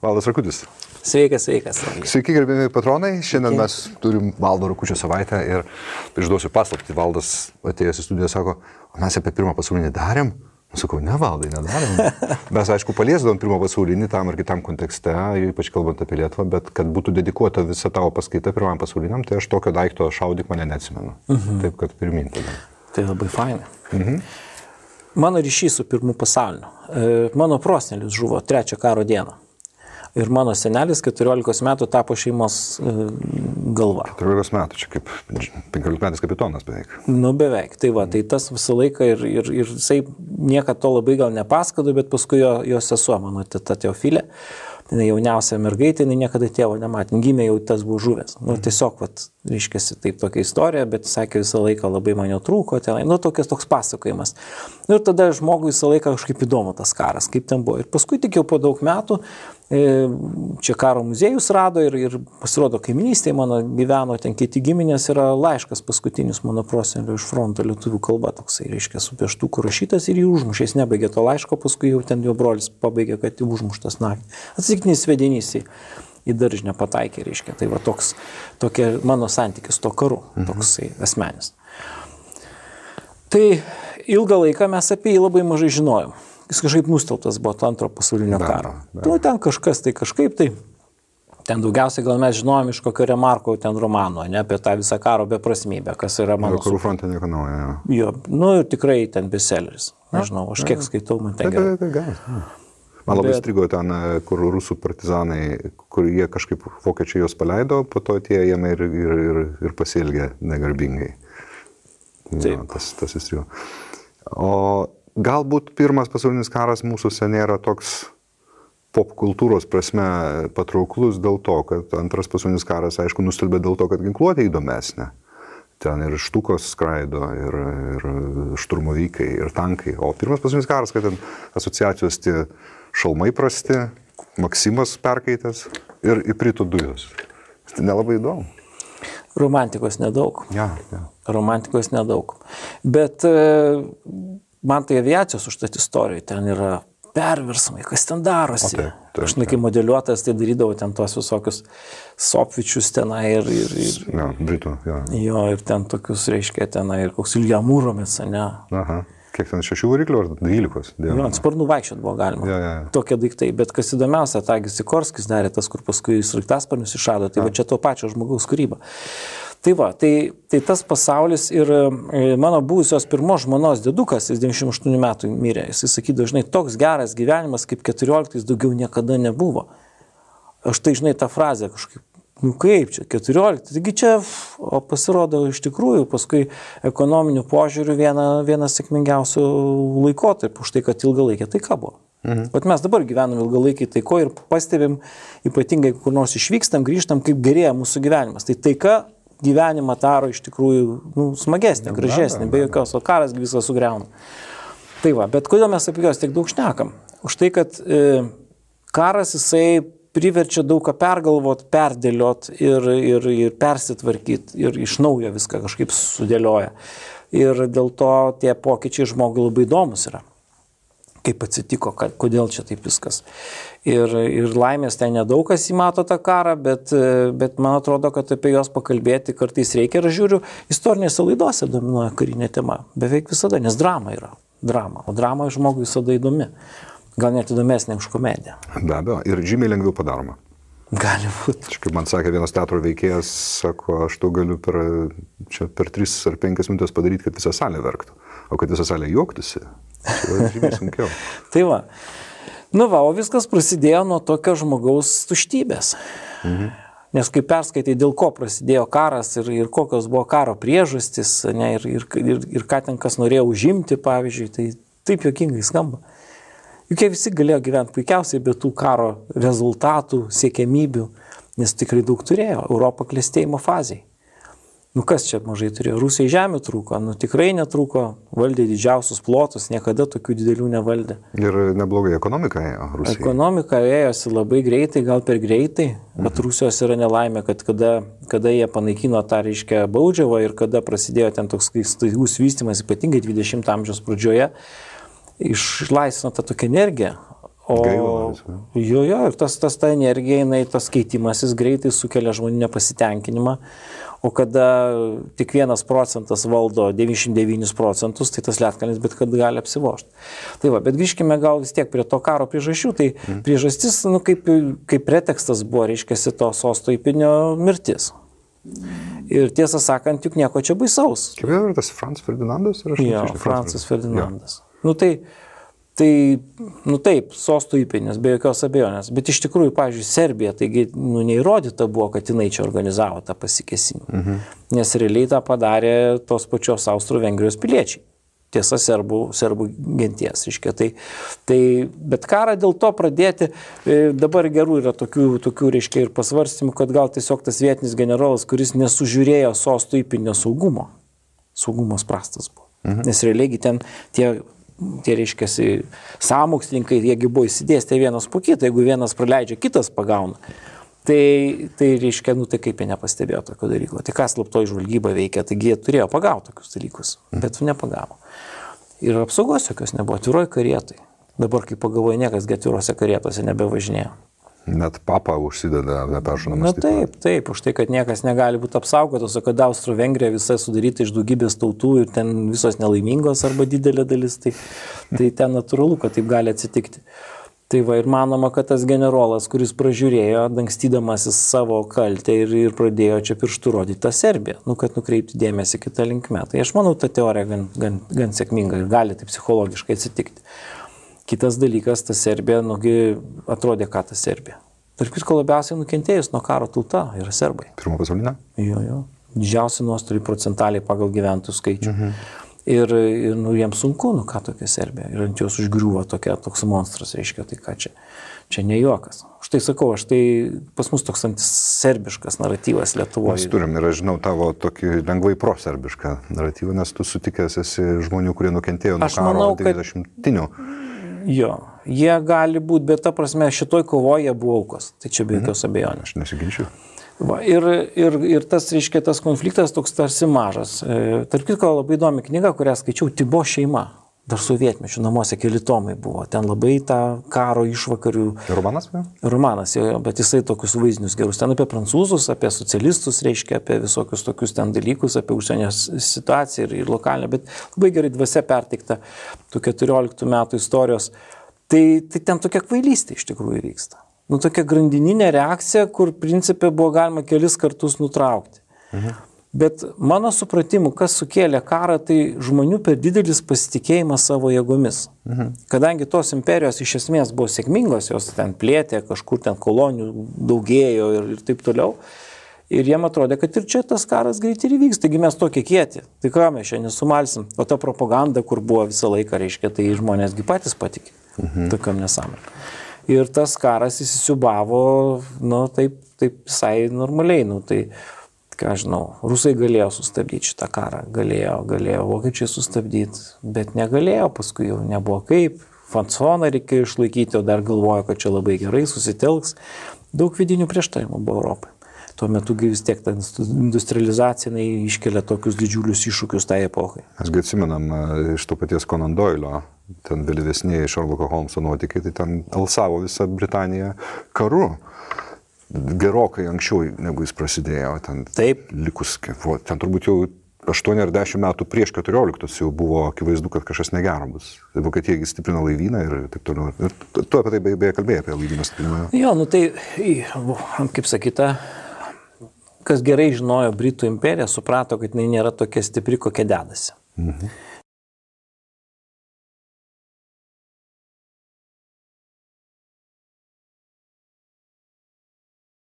Valdas Rakutis. Sveikas. Sveiki, gerbėmi patronai. Šiandien mes turim Valdo Rakučio savaitę ir išduosiu paslaptį. Valdas atėjęs į studiją sako, mes apie pirmą pasaulinį darėm. Sakau, ne, Valdai, nedarėm. Mes, aišku, paliesdavom pirmą pasaulinį tam ar kitam kontekste, ypač kalbant apie Lietuvą, bet kad būtų dedikuota visa tavo paskaita pirmam pasauliniam, tai aš tokio daikto šaudyk mane neatsimenu. Taip, kad pirmin tada. Tai labai fainai. Mano ryšys su pirmu pasauliniu. Mano prosenelis žuvo 3 karo dieną. Ir mano senelis 14 metų tapo šeimos galva. 14 metų, čia kaip 15 metais kapitonas beveik. Nu, beveik. Tai va, tai tas visą laiką ir jisai niekad to labai gal nepasakado, bet paskui jo sesuo, mano teta Teofilė, jauniausia mergaitė, niekada tėvo nematė, gimė jau tas buvo žuvęs. Nu, tiesiog, vat, reiškiasi taip tokia istorija, bet sakė visą laiką labai man jo trūko, tenai, nu, toks pasakojimas. Nu, ir tada žmogui visą laiką kažkaip įdomu tas karas, kaip ten buvo. Ir paskui tik jau po daug metų čia karo muziejus rado ir pasirodo kaiminystėje mano gyveno, ten kiti giminės yra laiškas paskutinis mano prosenelio iš fronto lietuvių kalba, toksai, reiškia, su pieštuku rašytas ir jį užmušė, jis nebaigė to laiško, paskui jau ten jo brolis pabaigė, kad jį užmuštas naktį. Atsitiktinis svedinys į daržinę pataikė, reiškia, tai va tokia mano santykis to karu, toksai asmenis. Tai ilgą laiką mes apie jį labai mažai žinojom. Jis kažkaip nusteltas buvo to antro pasaulinio karo. Nu, ten kažkas tai kažkaip tai. Ten daugiausiai gal mes žinojom iš kokio Remarko ten romano, ne, apie tą visą karo beprasmybę, kas yra mano... Karų fronte nieko naujo. Jo, nu ir tikrai ten bestselleris. Nežinau, aš kiek skaitau, man ten gerai. Man labai strigo ten, kur rusų partizanai, kur jie kažkaip vokiečiai juos paleido, po to tie jame ir pasielgė negarbingai. Taip. Ja, tas įstrigo. O galbūt pirmas pasaulinis karas mūsųse nėra toks popkultūros prasme patrauklus dėl to, kad antras pasaulinis karas, aišku, nustelbė dėl to, kad ginkluotė įdomesnė. Ten ir štukos skraido, ir šturmovykai, ir tankai. O pirmas pasaulinis karas, kad ten asociacijos tie šalmai prasti, Maksimas perkaitęs ir įprito dujos. Tai nelabai įdomu. Romantikos nedaug. Ja. Romantikos nedaug. Bet man tai aviacijos užtat istorijoje, ten yra perversmai, kas ten darosi. Taip. Aš kai modeliuotas, tai darydavau ten tuos visokius sopvičius tenai ir ja, Britų, ja. Jo, ir ten tokius, reiškia, tenai ir koks Ilja Mūromis, ne? Aha. Kiek ten 6 variklių ar 12? Jo, ant sparnų vaikščiot buvo galima. Ja. Tokie daiktai. Bet kas įdomiausia, Tagis Sikorskis darė tas, kur paskui sraigtasparnius išrado. Tai va čia to pačio žmogaus kūryba. Tai va, tai tas pasaulis ir mano buvusios pirmos žmonos dėdukas, jis 98 metų mirė, jis sakydavo, žinai, toks geras gyvenimas kaip 14 daugiau niekada nebuvo. Aš tai, žinai, tą frazę kažkaip, nu kaip čia, 14, taigi čia, o pasirodo iš tikrųjų, paskui ekonominių požiūrių vienas sėkmingiausių laikotarpių, už tai, kad ilgalaikė taika buvo. Bet mes dabar gyvenam ilgalaikiai taiko ir pastebim, ypatingai kur nors išvykstam, grįžtam, kaip gerėja mūsų gyvenimas. Tai taika gyvenimą daro iš tikrųjų smagesnį, gražesnį, be jokios, o karas visą sugriauna. Tai va, bet kodėl mes apie juos tiek daug šnekam? Už tai, kad karas jisai priverčia daug ką pergalvot, perdėliot ir persitvarkyti ir iš naujo viską kažkaip sudėlioja. Ir dėl to tie pokyčiai žmogui labai įdomus yra. Kaip atsitiko, kodėl čia taip viskas. Ir laimės ten nedaug kas įmato tą karą, bet man atrodo, kad apie juos pakalbėti kartais reikia. Ir aš žiūriu, istorinėse laidose dominuoja karinė tema. Beveik visada, nes drama yra. Drama. O drama žmogui visada įdomi. Gal net įdomesnė už komediją. Be abejo. Ir žymiai lengviau padaroma. Gali būti. Kaip man sakė vienas teatro veikėjas, sako, aš to galiu per 3 ar 5 minutės padaryti, kad visą salę verktų. O kad visą salę juoktųsi, tai žymiai sunkiau. Tai va. Nu va, o viskas prasidėjo nuo tokio žmogaus tuštybės. Nes kai perskaitai, dėl ko prasidėjo karas ir kokios buvo karo priežastys, ne, ir ką ten kas norėjo užimti, pavyzdžiui, tai taip juokingai skamba. Juk jie visi galėjo gyventi puikiausiai be tų karo rezultatų, siekiamybių, nes tikrai daug turėjo. Europą klestėjimo fazėje. Nu kas čia mažai turėjo? Rusijai žemė trūko, nu tikrai netrūko, valdė didžiausius plotus, niekada tokių didelių nevaldė. Ir neblogai ekonomika ėjo Rusijai. Ekonomika ėjosi labai greitai, gal per greitai, bet Rusijos yra nelaimė, kad kada jie panaikino tą, reiškia, baudžiavą ir kada prasidėjo ten toks staigus vystymas, ypatingai 20 amžiaus pradžioje, išlaisvino tą tokią energiją, Jo, ir ta energija, tas keitimasis greitai sukelia žmonių nepasitenkinimą, o kada tik 1% valdo 99%, tai tas ledkalnis bet kad gali apsivožti. Tai va, bet grįžkime gal vis tiek prie to karo priežasčių, tai priežastis, kaip pretekstas buvo, reiškiasi to sosto įpėdinio mirtis. Ir tiesą sakant, juk nieko čia baisaus. Kaip yra tas Franz Ferdinandas? Jo, Francas Ferdinandas. Taip, sosto įpėdinis, be jokios abejonės. Bet iš tikrųjų, pavyzdžiui, Serbija, taigi neįrodyta buvo, kad jinai čia organizavo tą pasikėsinimą. Nes realiai tą padarė tos pačios Austro-Vengrijos piliečiai. Tiesa, serbų genties. Bet karą dėl to pradėti, dabar gerų yra tokių reiškia ir pasvarstymų, kad gal tiesiog tas vietinis generolas, kuris nesužiūrėjo sosto įpėdinio saugumas prastas buvo. Nes realiai ten tie reiškiasi sąmokslininkai, jiegi buvo įsidėstę vienas po kitą, jeigu vienas praleidžia, kitas pagauna. Tai reiškia, tai kaip jie nepastebėjo tokio dalyko. Tai kas slaptoji žvalgyba veikia, taigi jie turėjo pagauti tokius dalykus, bet nepagavo. Ir apsaugos jokios nebuvo, atviroj karietai. Dabar, kai pagalvoju, niekas atvirose karietose nebevažinėjo. Net papa užsideda neperšonamas. Taip, už tai, kad niekas negali būti apsaugotas, o kad Austro-Vengrija visa sudaryta iš daugybės tautų ir ten visos nelaimingos arba didelė dalis, tai ten natūralu, kad taip gali atsitikti. Tai va, ir manoma, kad tas generolas, kuris pražiūrėjo, dangstydamasis savo kaltę ir pradėjo čia pirštų rodyti tą Serbiją, kad nukreipti dėmesį kitą linkmę. Tai aš manau, ta teorija gan sėkminga ir gali taip psichologiškai atsitikti. Kitas dalykas, ta Serbija, atrodė, ką ta Serbija. Tarp kitko labiausiai nukentėjus nuo karo tauta yra serbai. Pirmo pasaulinio? Jo. Didžiausi nuostoliai procentaliai pagal gyventojų skaičių. Ir jiems sunku, ką tokia Serbija. Ir ant jos užgriuvo toks monstras, reiškia, tai ką čia ne juokas. Štai sakau, pas mus toks antiserbiškas naratyvas Lietuvoje. Mes turim ir aš žinau tavo tokį lengvai proserbišką naratyvą, nes tu sutikęs esi žmonių, kurie nukentėjo nuo karo 90-tinių. Jo, jie gali būti, bet ta prasme šitoj kovoje buvo aukos. Tai čia be jokios abejonės. Aš nesiginčiu. Va, ir tas, reiškia, tas konfliktas toks tarsi mažas. Tarp kitko labai įdomi knyga, kurią skaičiau, Tibo šeima. Dar sovietmečių namuose keli tomai buvo. Ten labai tą karo išvakarių. Romanas? Romanas, bet jisai tokius vaizdinius gerus. Ten apie prancūzus, apie socialistus, reiškia, apie visokius tokius ten dalykus, apie užsienio situaciją ir lokalinę, bet labai gerai dvasia perteikta tų 14 metų istorijos. Tai ten tokia kvailystė iš tikrųjų vyksta. Tokia grandininė reakcija, kur principė buvo galima kelis kartus nutraukti. Bet mano supratimu, kas sukėlė karą, tai žmonių per didelis pasitikėjimas savo jėgomis. Kadangi tos imperijos iš esmės buvo sėkmingos, jos ten plėtė, kažkur ten kolonijų daugėjo ir taip toliau. Ir jiem atrodė, kad ir čia tas karas greitai įvyks, taigi mes tokie kieti. Tai ką mes čia nesumalsim. O ta propaganda, kur buvo visą laiką, reiškia, tai žmonėsgi patys patikė. Tokiam nesąmonėm. Ir tas karas įsisiubavo, taip visai normaliai. Tai ką žinau, rusai galėjo sustabdyti šitą karą, galėjo vokiečiai sustabdyti, bet negalėjo, paskui jau nebuvo kaip, fansoną reikėjo išlaikyti, o dar galvojo, kad čia labai gerai susitelks. Daug vidinių prieštarimų buvo Europai. Tuo metu vis tiek ta industrializacija iškelia tokius didžiulius iššūkius tai epochai. Mes atsimenam iš to paties Conan Doylio, ten vėlyvesnėje Sherlocko Holmeso nuotykiai, tai ten alsavo visą Britaniją karu. Gerokai anksčiau, negu jis prasidėjo, ten likus, ten turbūt jau 8 ar 10 metų prieš 14 jau buvo akivaizdu, kad kažkas negero bus. Vokietija stiprino laivyną ir taip toliau. Tu apie tai beje kalbėjai, apie laivyną stiprinimą. Jo, kaip sakyta, kas gerai žinojo Britų imperiją, suprato, kad jinai nėra tokia stipri, kokia dedasi.